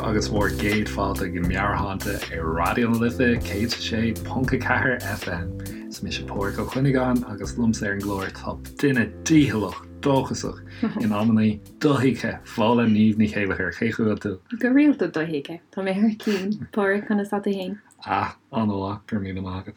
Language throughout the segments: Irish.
agus bhur gcéad fáilte go Meabhairshláinte ar Raidió na Life 106.4 FM. Is mise Pádhraic Ó Cuinneagáin agus liomsa ar an gclár tá duine dícheallach, dóchasach, in amannaí dothuigthe, Fódhla Niamh Ní Chéilleachair. Cén chaoi a bhfuil tú? Go rialta dothuigthe. Tá mé thar cinn. Pádhraic, conas tá tú fhéin? Ah, an-mhaith, go raibh míle maith agat.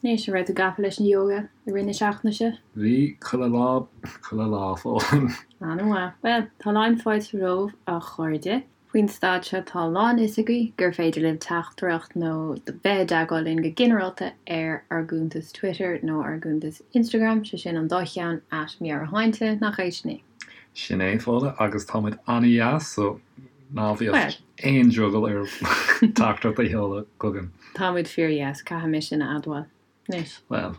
Anois, an raibh tú gafa leis an yoga i rith na seachtaine seo? Bhí, chuile lá, chuile lá, Fódhla. An-mhaith. Bhuel, tá a lán fáilte romhaibh, a chairde. Faoin staid seo tá a lán fhios agaibh gur féidir libh teachtaireacht nó bheith i dteagmháil linn go ginearálta ar ár gcuntas Twitter nó ár gcuntas Instagram, sé sin an dá cheann, at Meabhairshláinte, nach é sin é? Sin é, Fódhla, agus tá muid an-dheas, so ná bíodh aon drogall oraibh teachtaireacht a sheoladh chugainn. Tá muid fíor-dheas, caithfidh mé sin a admháil. Anois. Bhuel,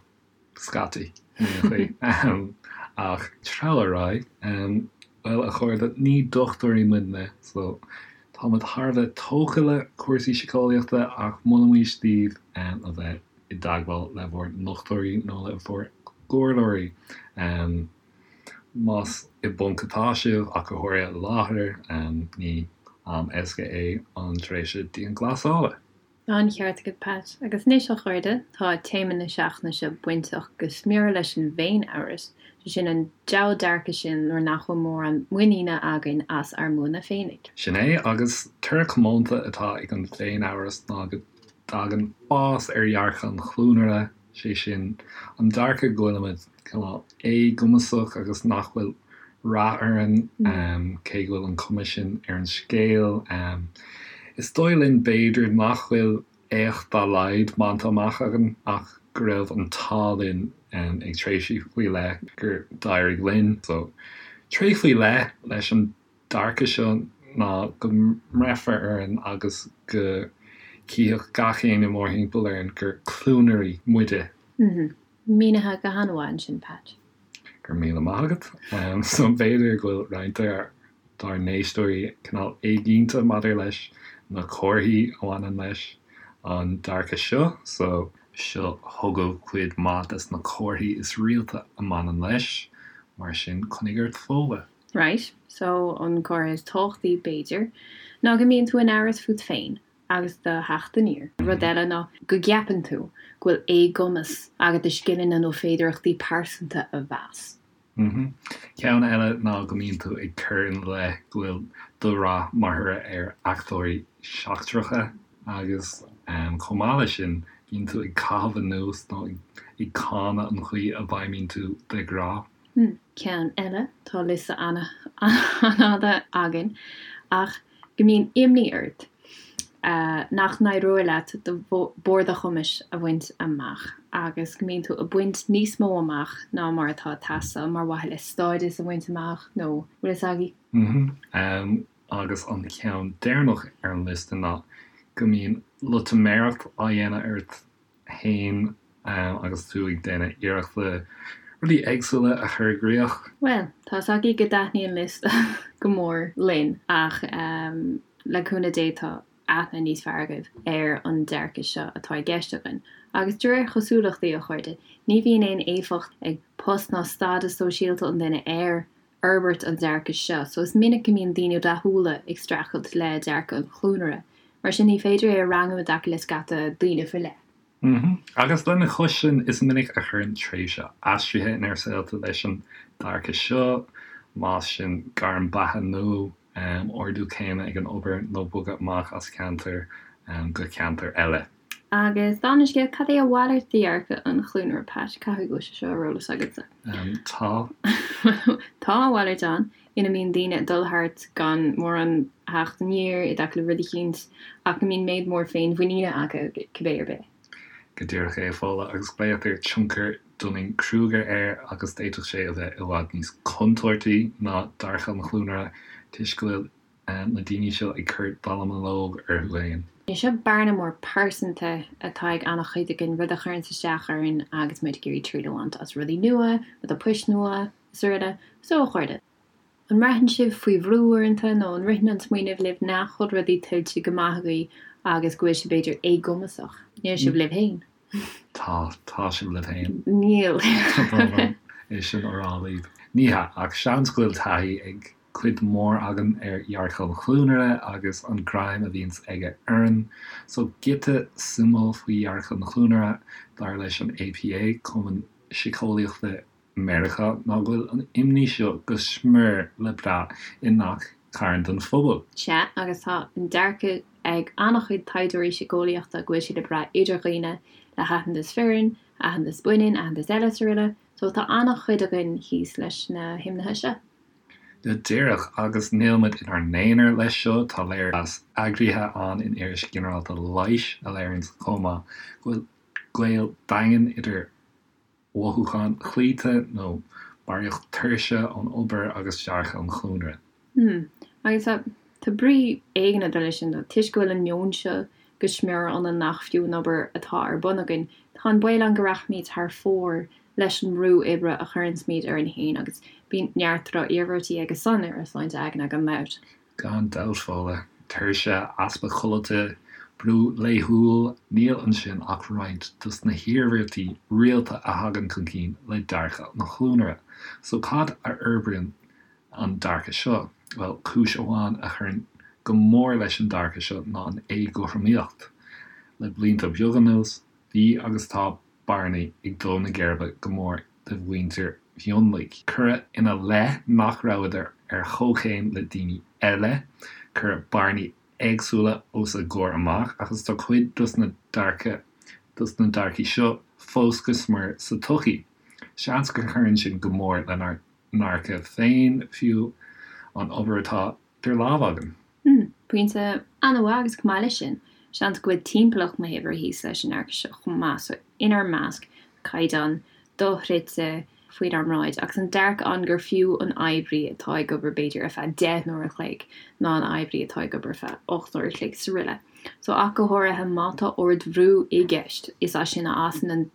scaití, in aon chaoi. Ach treabhadh ar aghaidh. Bhuel, a chairde, ní dochtúirí muidne, so tá muid thar a bheith tógtha le cúrsaí síceolaíochta ach molaimís daoibh a bheith i dteagmháil le bhur ndochtúirí nó le bhur gcomhairleoirí. Más i bponc atá sibh, ach go háirithe i láthair, ní am éasca é an tréimhse dianghlasála. An-cheart agat, Pat. Agus anois, a chairde, tá téama na seachtaine seo bainteach go smior leis an bhféin-amhras, sé sin an diabhal dearcadh sin nuair nach bhfuil mórán muiníne againn as ár mbuanna féinig. Sin é, agus toradh comónta atá ag an bhféin-amhras ná go dtagann fás ar dhearcadh an chluanaire, sé sin, an dearcadh go bhfuilimid cineál éagumasach agus nach bhfuil rath orainn, cé go bhfuil an cuma sin ar an scéal. Is dóigh linn, b'fhéidir, nach bhfuil éacht dá laghad bainte amach againn ach go raibh an t-ádh linn ag tréimhsí faoi leith gur d'éirigh linn. So, tréith faoi leith leis an dearcadh seo ná go mbreithfear orainn agus go gcífeadh gach éinne mórthimpeall orainn gur cluanairí muide. Mínithe go han-mhaith ansin, Pat. Go raibh míle maith agat. So b'fhéidir go bhfuil roinnt dár n-éisteoirí cineál éiginnte maidir leis na comharthaí a bhaineann leis an dearcadh seo. So seo chugaibh cuid mhaith des na comharthaí is rialta a mbaineann leis, mar sin coinnigh ort Fódhla. Right, so an comhartha is tábhachtaí, b'fhéidir, ná go mbíonn tú in amhras fút féin agus do theacht aniar. Rud eile ná go gceapann tú go bhfuil éagumas agat do scileanna nó féidearthachtaí pearsanta a mheas. Ceann eile ná go mbíonn tú ag cur ina leith go bhfuil do rath mar thoradh ar fhachtóirí seachtracha agus chomh maith leis sin bíonn tú ag caitheamh anuas nó ag cáineadh an chaoi a bhfeidhmíonn tú de ghnáth. Ceann eile, tá liosta an-fhada againn, ach go mbíonn imní ort nach n-éireoidh leat do bharr do chumais a bhaint amach agus go mbíonn tú ag baint níos mó amach ná mar atá ag teastáil mar mhaithe le stádas a bhaint amach nó bhfuil fhios agaibh. Agus an ceann deireanach ar an liosta ná go mbíonn loitiméireacht á dhéanamh ort fhéin agus tú ag déanamh iarrachta rudaí éagsúla a chur i gcrích. Bhuel, tá 's agaibh go dtaitníonn liosta go mór linn ach le cúnamh Dé tá aithne níos fearr agaibh ar an dearcadh seo atá i gceist againn. Agus de réir chosúlachtaí, a chairde, ní bhíonn aon éifeacht ag post ná stádas sóisialta an duine ar fhorbairt an dearcaidh seo, so is minic go mbíonn daoine rathúla ag streachailt le dearcadh an chluanaire. Mar sin, ní féidir é a rangú i dtaca le scata daoine faoi leith. Agus lena chois sin, is minic a chuireann tréimhse aistrithe inár saolta leis an dearcadh seo, más sin gairm beatha nua, ardú céime ag an obair nó bogadh amach as ceantar go ceantar eile. Agus dála an scéil, cad é a mhalairt de dhearcadh an chluanaire, Pat? Caithfidh go bhfuil sé seo ar eolas agatsa. Tá. Tá a mhalairt ann, ina mbíonn daoine ag dul thart gan mórán theacht aniar i dtaca le rud eicínt, ach go mbíonn méid mór féinmhuiníne acu cibé ar bith. Go díreach é, a Fódhla, agus glaotar tionchar Dunning-Kruger air, agus d'fhéadfadh sé a bheith i bhfad níos contúirtí ná dearcadh an chluanaire, toisc go bhfuil na daoine seo ag cur dallamullóg orthu féin. Seo bearna mór pearsanta atá ag an-chuid againn, rud a chuireanns isteach orainn agus muid ag iarraidh triail a bhaint as rudaí nua, rudaí poist nua, is araile. So, a chairde, an mbraitheann sibh faoi bhrú uaireanta nó an ritheann an smaoineamh libh nach bhfuil rudaí tuillte go maith agaibh agus go bhfuil sibh b'fhéidir éagumasach? Níl sibh libh féin. Tá, tá sibh libh féin. Níl. Tá brón orm é sin a rá libh. Ní hea, ach seans go bhfuil taithí ag. cuid mhór againn ar dhearcadh an chluanaire agus an greim a bhíonns aige orainn. So giota suimiúil faoi dhearcadh an chluanaire, dar leis an APA, Cumann Síceolaíochta Meiriceá, ná go bhfuil an imní seo go smior le brath i ngach carn den phobal. Sea, agus tá an dearcadh ag an-chuid taighdeoirí síceolaíochta go bhfuil sé le brath idir dhaoine le haitheantas fireann, aitheantas baineann, aitheantas eile is araile. So tá an-chuid againn thíos leis na himnithe seo. Go díreach, agus níl muid inár n-aonar leis seo, tá léirmheas eagraithe ann in Iris Ghinearálta Leighis a léiríonns chomh maith go bhfuil gaol daingean idir mhothúcháin chloíte nó barraíocht tuirse ón obair agus dearcadh an chluanaire. Hmm. Agus tá, tá brí éigin ag dul leis sin, toisc go bhfuil an meon seo go smior ionainn nach fiú an obair atá ar bun againn, tá an baol ann go rachaimid thar fóir leis an mbrú oibre a chuireanns-muid orainn féin agus bíonn neart droch-iarmhairtí aige san ar ár sláinte aigne gan dabht. Gan dabht, Fódhla. Tuirse, easpa codlata, brú laethúil, níl ansin ach roinnt dos na hiarmhairtí rialta a thagann chun cinn le dearcadh an chluanaire. So cad a fhorbraíonn an dearcadh seo? Bhuel, cúis amháin a chuireann go mór leis an dearcadh seo ná an éagothromaíocht. Le blianta beaga anuas, bhí agus tá bearnaí ag dó na geirbe go mór do mhuintir mhionlaigh. Cuireadh ina leith nach rabhadar ar chomhchéim le daoine eile, cuireadh bearnaí éagsúla os a gcomhair amach agus tá cuid dos na dearcadh dos na dearcaí seo fós go smior sa tsochaí. Seans go gcuireann sin go mór lenár ndearcadh féin, fiú an obair atá idir lámha againn. Hmm, pointe an-mhaith agus chomh maith leis sin, seans go bhfuil timpeallacht na hoibre thíos leis an ndearcadh seo chomh maith, so inár measc, caighdeán dochreidte faoinár mbráid agus an dearcadh ann gur fiú an oibrí atá ag obair b'fhéidir ar feadh 10 n-uair a chloig ná an oibrí atá ag obair ar feadh 8 n-uair a chloig is araile. So ach go háirithe má tá ardbhrú i gceist, is as sin a fhásann an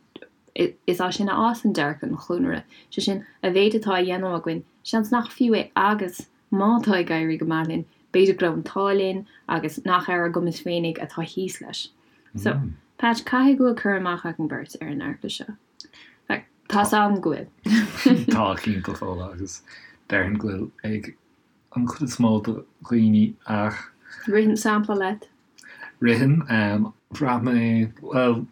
is as sin a fhásann dearcadh an chluanaire, sé sin, a mhéid atá á dhéanamh againn, seans nach fiú é agus má tá ag éirí go maith linn, b'fhéidir go raibh an t-ádh linn agus nach ar ár gcumas féinig atá thíos leis. So, Patch, caithfidh go bhfuil cur amach againn beirt ar an ndearcadh seo. In fact, tá's agam go bhfuil. Tá, cinnte, Fódhla, agus déarfainn go bhfuil ag an chuid is mó de dhaoine ach. Ritheann sampla leat? Ritheann. Bhraith mé, bhuel,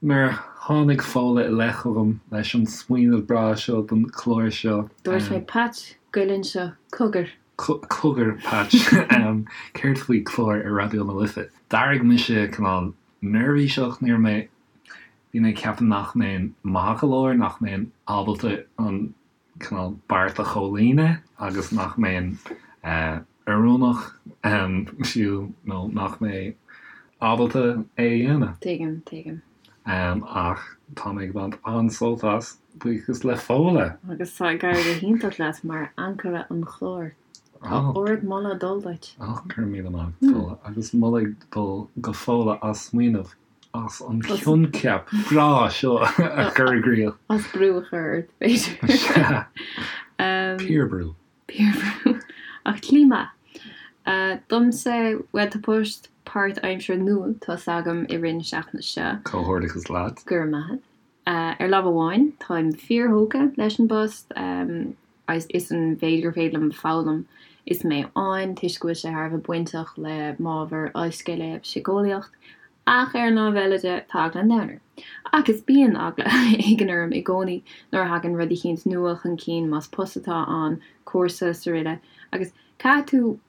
Nuair a tháinig Fódhla i leith chugam leis an smaoineamh breá seo don chlár seo. Dúirt mé, Patch, goil anseo, cogar. Cogar, Patch, céard faoi chlár ar Raidió na Life? D'éirigh mise cineál neirbhíseach, ní raibh mé, bhí mé ag ceapadh nach mbeinn maith go leor, nach mbeinn ábalta an cineál beart a chomhlíonadh agus nach mbeinn oiriúnach fiú nó nach mbeinn ábalta é a dhéanamh. Tuigim, tuigim. Ach tá mé ag baint an-sult as, buíochas le Fódhla! Agus tá ag éirí go hiontach leat mar ancaire an chláir. Tá ard-mholadh ag dul duit. Ó, go raibh míle maith agat, Fódhla. Agus moladh ag dul go Fódhla as smaoineamh as an choincheap breá seo a chur i gcrích. As brú a chur ort, b'fhéidir. Sea. Piarbhrú. Piarbhrú. Ach slí maith. Domsa, bhuel, tá post páirtaimseartha nua tosaithe agam i rith na seachtaine seo. Comhghairdeachas leat. Go raibh maith agat. Ar lámh amháin, táim fíorthógtha leis an bpost is an mhéid gur féidir liom foghlaim is mé ann, toisc go bhfuil sé thar a bheith bainteach le m'ábhar ollscoile, síceolaíocht. Ach ar an lámh eile de, tá eagla an domhain orm. Agus bíonn eagla éigin orm i gcónaí nuair a thagann rud eicínt nua chun cinn, más post atá ann, cúrsa, is araile. Agus caithfidh tú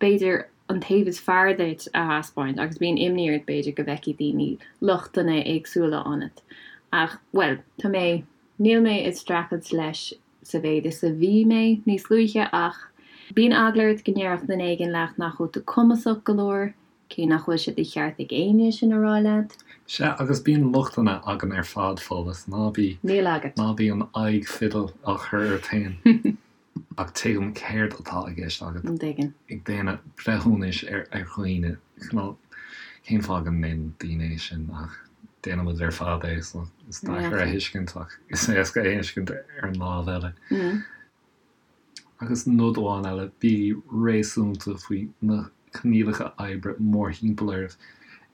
b'fhéidir, an taobh is fearr duit a thaispeáint agus bíonn imní ort, b'fhéidir, go bhfeicfidh daoine lochtanna éagsúla ionat. Ach, bhuel, tá mé, níl mé ag streachailt leis sa mhéid is a bhí mé níos luaithe ach bíonn eagla ort go ndéarfadh duine éigin leat nach bhfuil tú cumasach go leor, cé nach bhfuil sé de cheart ag éinne sin a rá leat. Sea, agus bíonn lochtanna againn ar fad, Fódhla, ná bí, Níl agat. ná bí an aghaidh fidil á chur ort féin. Ach tuigim céard atá i gceist agat. An dtuigeann? Ag déanamh breithiúnais ar dhaoine. Cineál, cén fáth go ndéanann daoine é sin? Ach déanann muid ar fad é, so is deacair a thuiscint ach is éasca a thuiscint ar an lámh eile. Agus nod amháin eile, bígí réasúnta faoi na coinníollacha oibre mórthimpeall oraibh.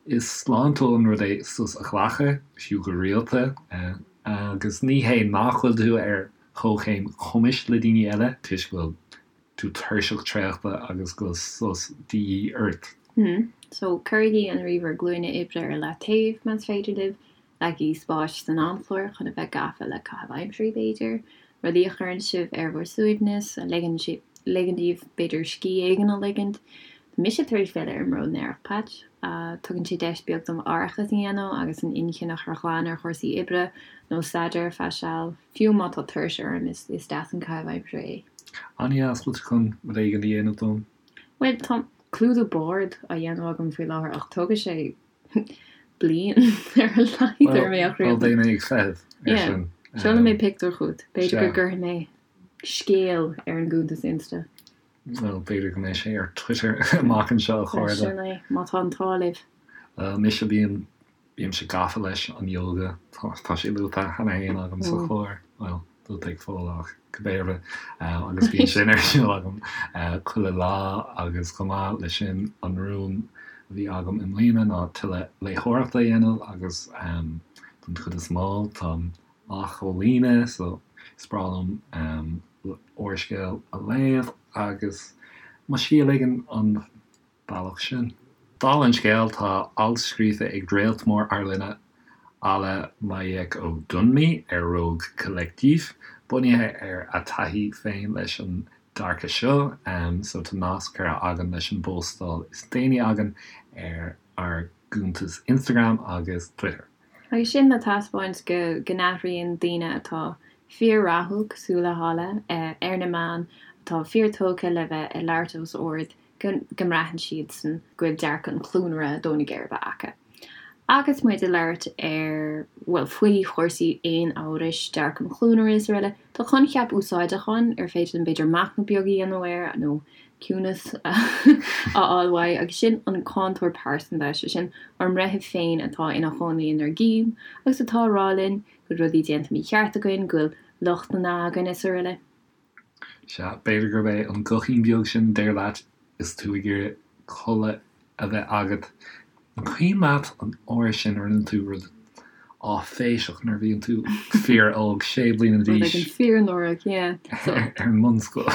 Is sláintiúil an rud é sos a ghlacadh, fiú go rialta, agus ní hé nach bhfuil tú ar chomhchéim cumais le daoine eile, toisc go bhfuil. tú tuirseach traochta agus go bhfuil sos de dhíth ort. So, cuirigí an ríomhaire glúine oibre ar leataobh, más féidir libh. Leagaigí spáis san amchlár chun a bheith gafa le caitheamh aimsire, b'fhéidir, rudaí a chuireann sibh ar bhur suaimhneas, a ligeann daoibh, b'fhéidir, scíth éigin a ligint. Tá mise tar éis filleadh ar an mbród aerach, Patch. Tugann sé deis beag dom aireachas a dhéanamh agus an inchinn a chur ghlan ar chúrsaí oibre nó staidéir ar feadh seal. Fiú má tá tuirse orm, is deas an caitheamh aimsire é. An-deas, bhfuil tú chun rud éigin a dhéanamh dom? Bhuel, tá clúdú boird á dhéanamh agam faoi láthair ach tógfaidh sé bliain ar a laghad orm é a chríochnú. Bhuel, beidh mé ag feitheamh ar sin. Seolfaidh mé pictiúr chugat. B'fhéidir go gcuirfidh mé scéal ar an gcuntas Insta. Bhuel, b'fhéidir go mbeidh sé ar Twitter amach anseo, a chairde. Sin é, má tá an t-ádh libh. Bhuel, mise, bím, bímse gafa leis an ióga. Tá sé luaite cheana féin agam sa chlár. Bhuel, luaite ag Fódhla ach cibé ar bith. Agus bíonn sin ar siúl agam chuile lá agus chomh maith leis sin an rún a bhí agam i mbliana ná tuilleadh léitheoireachta a dhéanamh agus don chuid is mó táim á chomhlíonadh so is breá liom úrscéal a léamh agus mo scíth a ligean an bealach sin. Dála an scéil, tá alt scríofa ag réalt mór ár linne, Alaa Majekodunmi ar Rogue Collective, bunaithe ar a taithí féin leis an dearcadh seo, so tá nasc curtha againn leis an bpóstáil is déanaí againn ar ár gcuntais Instagram agus Twitter. Agus sin le taispeáint go n-athraíonn daoine atá fíor-rathúil, cosúil le hAlaa, ar na meáin, atá fíor-tógtha le bheith ag labhairt os ard, go mbraitheann siadsan go bhfuil dearcadh an chluanaire ag dó na geirbe acu. Agus muid ag labhairt ar, bhuel, faoi chúrsaí féin-amhrais, dearcadh an chluanaire is araile, tá coincheap úsáideach ann ar féidir linn b'fhéidir machnamh beag a dhéanamh air nó ciúnas a fháil uaidh, agus sin an cáinteoir pearsanta, sé sin ár mbreitheamh féin atá ina chónaí inár gcinn agus atá ag rá linn go bhfuil rudaí déanta mícheart againn, go bhfuil lochtanna againn is araile. Sea, b'fhéidir gurb é an guthín beag sin a deir leat is tú ag iarraidh codladh a bheith agat. An cuimhin leat an uair sin a rinne tú rud áiféiseach nuair a bhíonn tú fíor-óg, sé bliana d'aois? Rud éigin fíor-náireach, yeah. Ar an mbunscoil.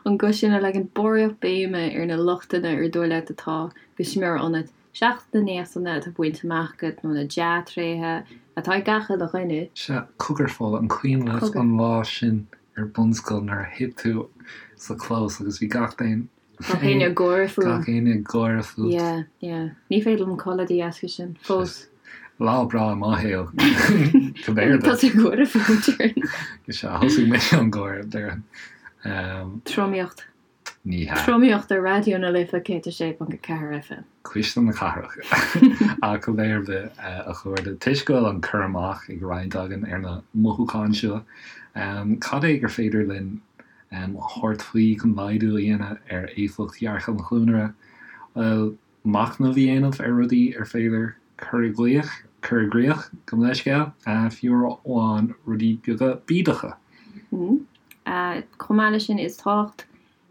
An guth sin a leagann barraíocht béime ar na lochtanna ar dóigh leat atá go smior ionat, seachas na néachtanna atá bainte amach agat nó na dea-tréithe atá ag gach uile dhuine. Sea, cogar Fódhla, an cuimhin leat an lá sin ar bunscoil nuair a thit tú sa chlós agus bhí gach éinne. Gach éinne ag gáire fúm. Gach éinne ag gáire fút. Yeah, yeah. Ní féidir liom codladh de dheasca sin. Fós. Lá breá i mo shaol. Cibé ar bith. Tá tú ag gáire fúm, déarfainn. Sea, thosaigh mise an gáire, déarfainn. Tromaíocht. Ní hea. Tromaíocht ar Raidió na Life 106.4 FM. Cuisle na cathrach. Ach cibé ar bith, a chairde, toisc go bhfuil an cur amach ag roinnt againn ar na mothúcháin seo, cad é gur féidir linn a thabhairt faoi chun laghdú a dhéanamh ar éifeacht dhearcadh an chluanaire? Bhuel, machnamh a dhéanamh ar rudaí ar féidir cur i gcrích, cur i gcrích, gabh mo leithscéal, fiú amháin rudaí beaga bídeacha. Chomh maith leis sin, is tábhacht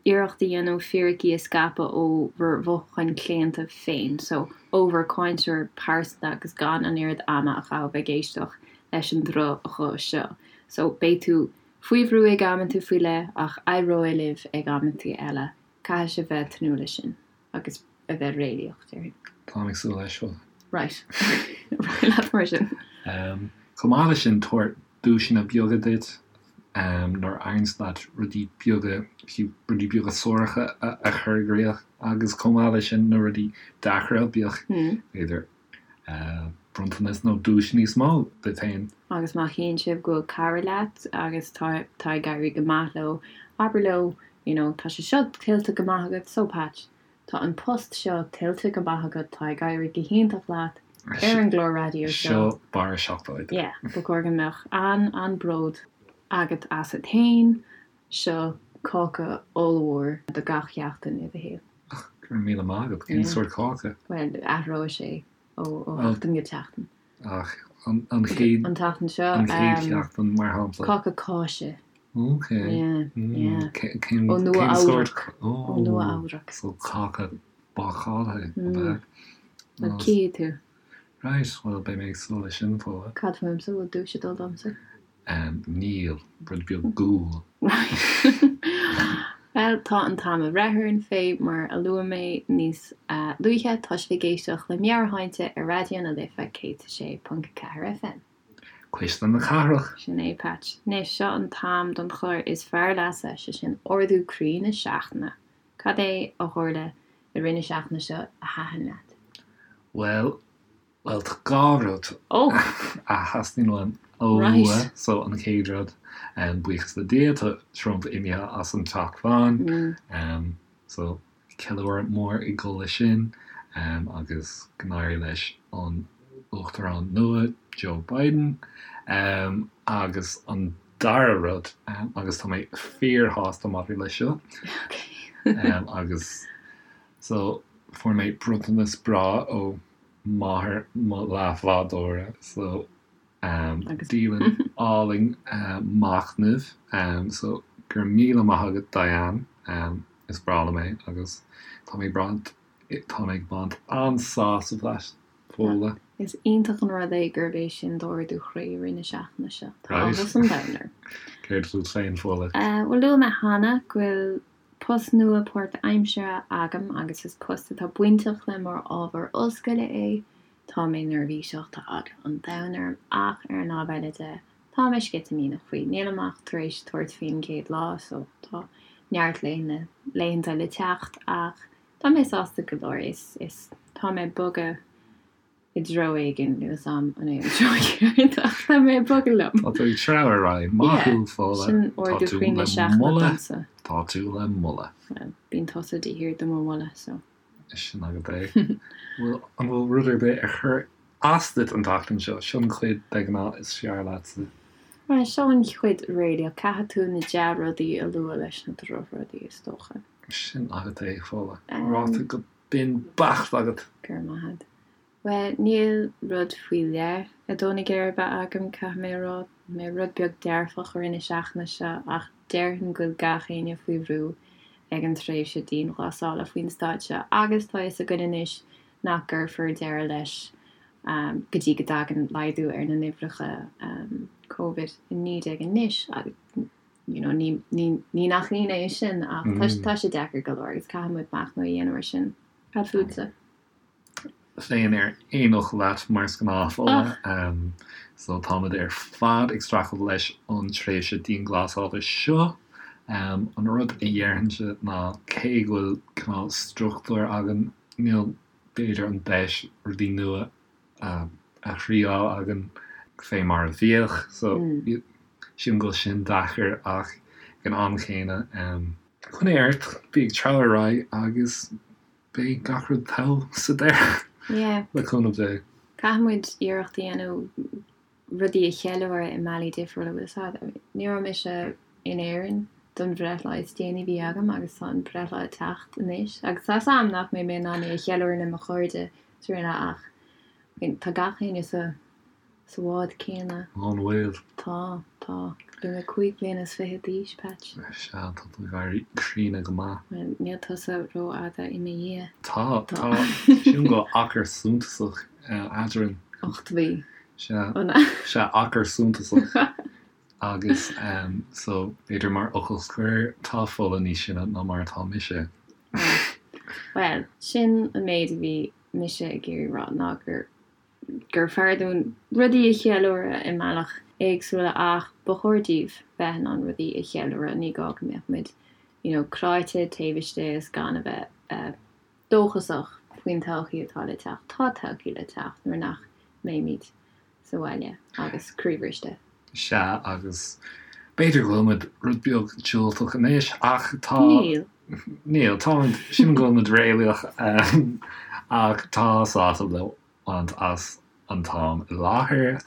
iarracht a dhéanamh fíricí a scaipeadh ó bhur mhothúcháin chlaonta féin, so ó bhur cáinteoir pearsanta agus gan an oiread ama a chaitheamh ag éisteacht leis an droch-ghuth seo. So beidh tú faoi bhrú ag amanta faoi leith ach éireoidh libh ag amanta eile. Caithfidh sibh bheith ag tnúth leis sin agus a bheith réalaíoch, déarfainn. Táim ag súil leis, bhuel. Right. Ar aghaidh leat mar sin. Chomh maith leis sin, tabhair duaiseanna beaga duit nuair a éiríonns leat rudaí beaga, fiú rudaí beaga suaracha a chur i gcrích agus chomh maith leis sin na rudaí deacra, bíodh, b'fhéidir, bronntanas nó duais níos mó duit féin. Agus má chíonn sibh go bhfuil cara leat agus tá tá ag éirí go maith leo, abair leo, you know, tá sé seo tuillte go maith agat, so Patch, tá an post seo tuillte go maith agat, tá ag éirí go hiontach leat ar an gclár raidió seo. Seo barra seacláide. Yeah, ba chóir go mbeadh an-an-bród agat asat féin, seo cáca ollmhór do gach sheachtain i do shaol. Ach, go raibh míle maith agat. Cén sórt cáca? Bhuel, athróidh sé ó sheachtain go seachtain. Ach an chéad. An tseachtain seo. An chéad sheachtain, mar shampla. Cáca cáise. Ok. Yeah, yeah. Cén Ó Nua sórt? Ó Nua Eabhrac. So cáca bácáilte, ab ea? Bhuel, cífidh tú. Right, bhuel, beidh mé ag súil leis sin, Fódhla. Cad fúmsa, bhfuil duais ag dul domsa? Níl, rud beag guail. Bhuel, tá an t-am ag breith orainn fé mar a luaigh mé níos luaithe, tá sibh ag éisteacht le Meabhairshláinte ar Raidió na Life 106.4 FM. Cuisle na Cathrach. Sin é, Patch. Anois, seo an t-am don chlár is fearr leatsa, sé sin Ardú Croí na Seachtaine. Cad é a tharla i rith na seachtaine seo a thaitin leat? Bhuel, bhuel, tá 2 rud a theastaíonn uaim a lua. So, an chéad rud, buíochas le Dia, tá Trump imithe as an Teach Bán. So, ceiliúradh mór ag dul leis sin agus go n-éirí leis an Uachtarán nua, Joe Biden. Agus an dara rud, agus tá mé fíorshásta maidir leis seo, agus so fuair mé bronntanas breá ó mháthair mo leathbhádóra, so dialann álainn machnaimh, so go raibh míle maith agat Diane, is breá liom é agus tá mé ag tá mé ag baint an-sásamh as, Fódhla. Is iontach an rud é gurb é sin d'ardú chroí i rith na seachtaine seo. Tá áthas an domhain orm. Céard fút féin, Fódhla? Bhuel, luaigh mé cheana go bhfuil post nua páirtaimseartha agam agus is post atá bainteach le m'ábhar ollscoile é. Tá mé neirbhíseach, tá eagla an domhain orm ach ar an lámh eile de, tá mé sceitimíneach faoi. Nílim ach tar éis tabhairt faoin gcéad lá so tá neart laethanta le teacht ach tá mé sásta go leor. Is tá mé ag bogadh i dtreo éigin, níl 'fhios a'm an é an treo ceart ach tá mé ag bogadh liom. Tá tú ag treabhadh ar aghaidh. Maith thú, Fódhla. Sin ardú croí na seachtaine domsa. Tá tú le moladh. Bhuel, bíonn tusa de shíor do mo mholadh, so. Sin agat é. Bhfuil, an bhfuil rud ar bith a chuir as duit an tseachtain seo? Seo an chuid de ghnáth is fearr leatsa. Bhuel, seo an chuid réalaíoch. Caithfidh tú na dea-rudaí a lua leis na drochrudaí, is dócha. Sin agat é, Fódhla. Ráite go binn beacht agat. Go raibh maith agat. Bhuel, níl rud faoi leith ag dó na geirbe agam, caithfidh mé a rá. Tá mé rud beag dearfach i rith na seachtaine seo ach déarfainn go bhfuil gach éinne faoi bhrú ag an tréimhse dianghlasála faoin staid seo agus tá a fhios againn anois nach gcuirfear deireadh leis go dtí go dtagann laghdú ar na n-uimhreacha Covid-19 anois agus you know ní ní nach ionadh é sin ach tá sé deacair go leor agus caithfidh muid machnamh a dhéanamh ar sin. Cad fútsa? féin ar aon fhocal leat mar is gnáth, Fódhla. So táimid ar fad ag streachailt leis an tréimhse dianghlasála seo. An rud a dhéarfainnse ná cé go bhfuil cineál struchtúr againn, níl b'fhéidir an deis rudaí nua a thriáil againn fé mar a bhíodh. So sílim go bhfuil sin deacair ach ag an am chéanna, coinnigh ort, bí ag treabhadh ar aghaidh agus Beidh gach rud togha sa deireadh, Yeah. le cúnamh Dé. Caithfidh muid iarracht a dhéanamh rudaí a cheiliúradh i mbealaí difriúla, bhfuil 'fhios a'd. Ní raibh mise in Éirinn don bhreithlá is déanaí a bhí agam agus tá an breithlá ag teacht anois agus tá 'fhios a'm nach mbeidh mé in ann é a cheiliúradh le mo chairde is araile ach tá gach éinne sa Sa bhád céanna. An bhfuil? Tá, tá. Beidh mé 25 bliana d'aois, Patch. Sea, tá tú ag éirí críonna go maith. Bhuel, níl tusa rófhada i mo dhiaidh. Tá, tá. Sílim go bhfuil achar suntasach eadrainn. 8 mhí. Sea, sea, achar suntasach. Agus, so, b'fhéidir mar fhocal scoir, tá Fódhla níos sine ná mar atá mise. Bhuel, sin an méid a bhí mise ag iarraidh rá, ná gur gur fearr dúinn rudaí a cheiliúradh i mbealaí éagsúla ach ba chóir daoibh bheith in ann rudaí a cheiliúradh, ní gá go mbeadh muid you know cráite taobh istigh is gan a bheith dóchasach faoin todhchaí atá le teacht. Tá todhchaí le teacht nuair nach mbeimid sa bhaile agus croíbhriste. Sea, agus b'fhéidir go bhfuil muid rud beag diúltach anois ach tá. Níl. Níl, táimid, sílim go bhfuil muid réalaíoch ach tá sásamh le baint as an t-am i láthair.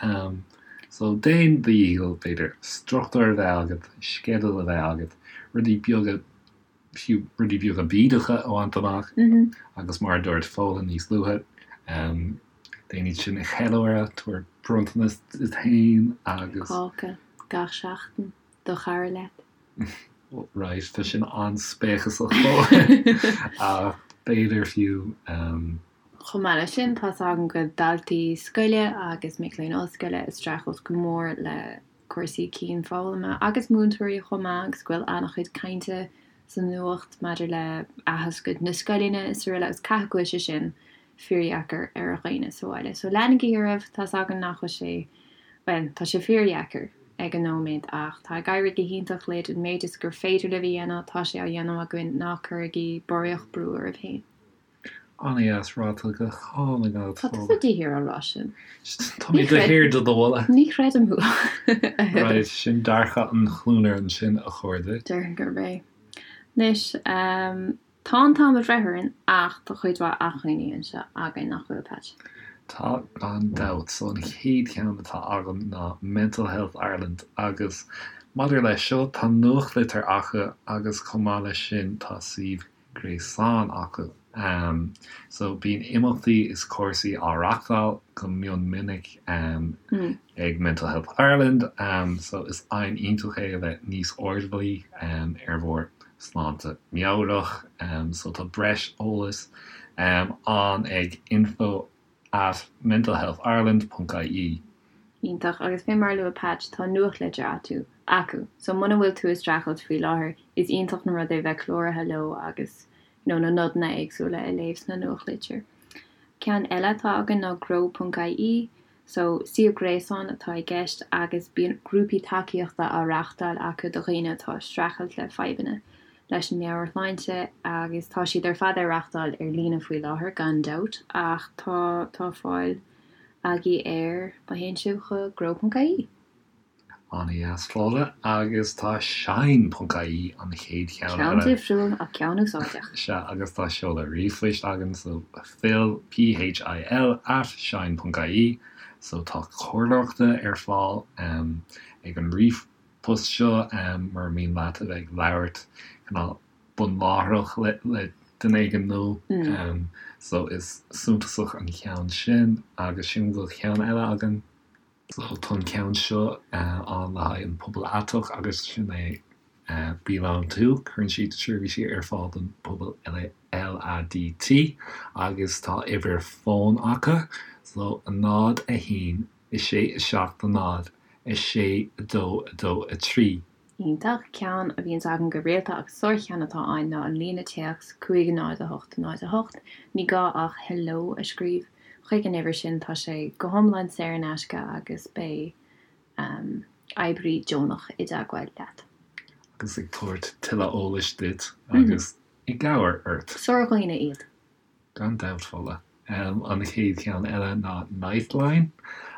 So déan do dhícheall, b'fhéidir, struchtúr a bheith agat, sceideal a bheith agat, rudaí beaga, fiú rudaí beaga bídeacha a bhaint amach agus mar a dúirt Fódhla níos luaithe, déan iad sin a cheiliúradh, tabhair bronntanas duit féin agus. Cáca gach seachtain do chara leat. Right, tá sin an-spéacasach ach b'fhéidir fiú. Chomh maith leis sin, tá's agam go bhfuil daltaí scoile agus mic léinn ollscoile ag streachailt go mór le cúrsaí cianfhoghlama agus múinteoirí chomh maith agus go bhfuil an-chuid cainte sa nuacht maidir le athoscailt na scoileanna is araile agus caithfidh go bhfuil sé sin fíordheacair ar dhaoine sa bhaile. So leanaigí oraibh, tá's againn nach bhfuil sé, bhuel, tá sé fíordheacair ag an nóiméad ach tá ag éirí go hiontach libh, an méid is gur féidir libh a dhéanamh, tá sé á dhéanamh againn, ná cuirigí barraíocht brú oraibh féin. An-dheas ráite go hálainn agat, Tá tusa de shíor á rá sin. Tá mé de shíor do do mholadh. Ní chreidim thú. Right, sin dearcadh an chluanaire ansin, a chairde. Déarfainn gurb é. Anois, tá an t-am ag breith orainn ach tá cuid mhaith acmhainní anseo againn, nach bhfuil, Patch? Tá, gan dabht. So an chéad cheann atá agam ná Mental Health Ireland agus maidir leis seo, tá nuachtlitir acu agus chomh maith leis sin tá suíomh gréasáin acu. So bíonn imeachtaí is cúrsaí á reachtáil go mion minic ag Mental Health Ireland. So is aidhm iontach é a bheith níos airdeallaí ar bhur sláinte meabhrach. So tá breis eolais ann ag info at mentalhealthireland ponc ie. Iontach, agus fé mar a luaigh Patch, tá nuachtlitir acu, acu, so muna bhfuil tú ag streachailt faoi láthair, is iontach an rud é bheith cláraithe leo agus you know na nodanna éagsúla a léamh sna nuachtlitir. Ceann eile atá againn ná grow ponc ie, so suíomh gréasáin atá i gceist agus bíonn grúpaí tacaíochta á reachtáil acu do dhaoine atá ag streachailt le fadhbanna leis an meabhairshláinte agus tá siad ar fad á reachtáil ar líne faoi láthair gan dabht ach tá tá fáil agaibh air má théann sibh chuig grow ponc ie. An-dheas Fódhla agus tá shine ponc ie an chéad cheann eile. Ceann difriúil ach ceann úsáideach. Sea agus tá seoladh ríomhphoist againn so phil, P-H-I-L, at shine ponc ie so tá comhairleoireachta ar fáil ag an ríomhphost post seo mura mian leat a bheith ag labhairt cineál bunláithreach le duine éigin nó so is suntasach an ceann sin agus sílim go bhfuil ceann eile againn. So tá an ceann seo ann le haghaidh an pobal aiteach agus sin é Belong To, cuireann siad seirbhísí ar fáil don pobal LADT agus tá uimhir fóin acu so 0, 1, 6, 7, 0, 6, 2, 2, 3. Iontach. Ceann a bhíonns agam go rialta agus sárcheann atá ann ná an líne téacs 5 0 8 0 8. Ní gá ach 'hello' a scríobh chuig an uimhir sin, tá sé go hiomlán saor in aisce agus beidh oibrí deonach i dteagmháil leat. Agus ag tabhairt tuilleadh eolais duit agus i gcabhair ort. Sár-dhaoine iad. Gan dabht, Fódhla. An chéad cheann eile ná Nightline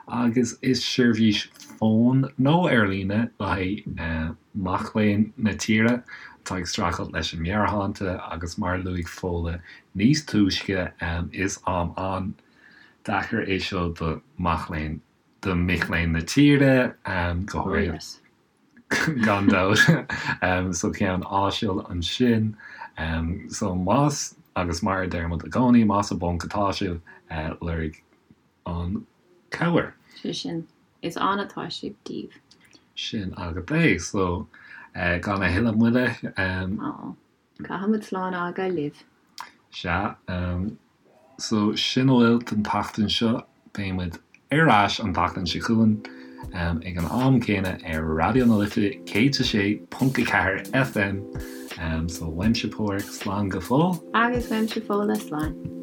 agus is seirbhís fóin nó ar líne le haghaidh mac léinn na tíre atá ag streachailt leis an meabhairshláinte agus mar a luaigh Fódhla níos túisce is am an-deacair é seo do mac léinn do mic léinn na tíre go háirithe. Gan dabht. So ceann áisiúil ansin. So más, agus mar a deir muid i gcónaí, más i bponc atá sibh, lorg an cabhair. Sé sin, is ann atá sibh daoibh. Sin agat é. So gan a thuilleadh moille. Aww. Caithfimid slán a fhágáil libh. Sea. So, sin a bhfuil don tseachtain seo. Beidh muid ar ais an tseachtain seo chugainn ag an am céanna ar Raidió na Life 106.4 FM. So, uaimse Páraic, slán go fóill. Agus uaimse Fódhla, slán.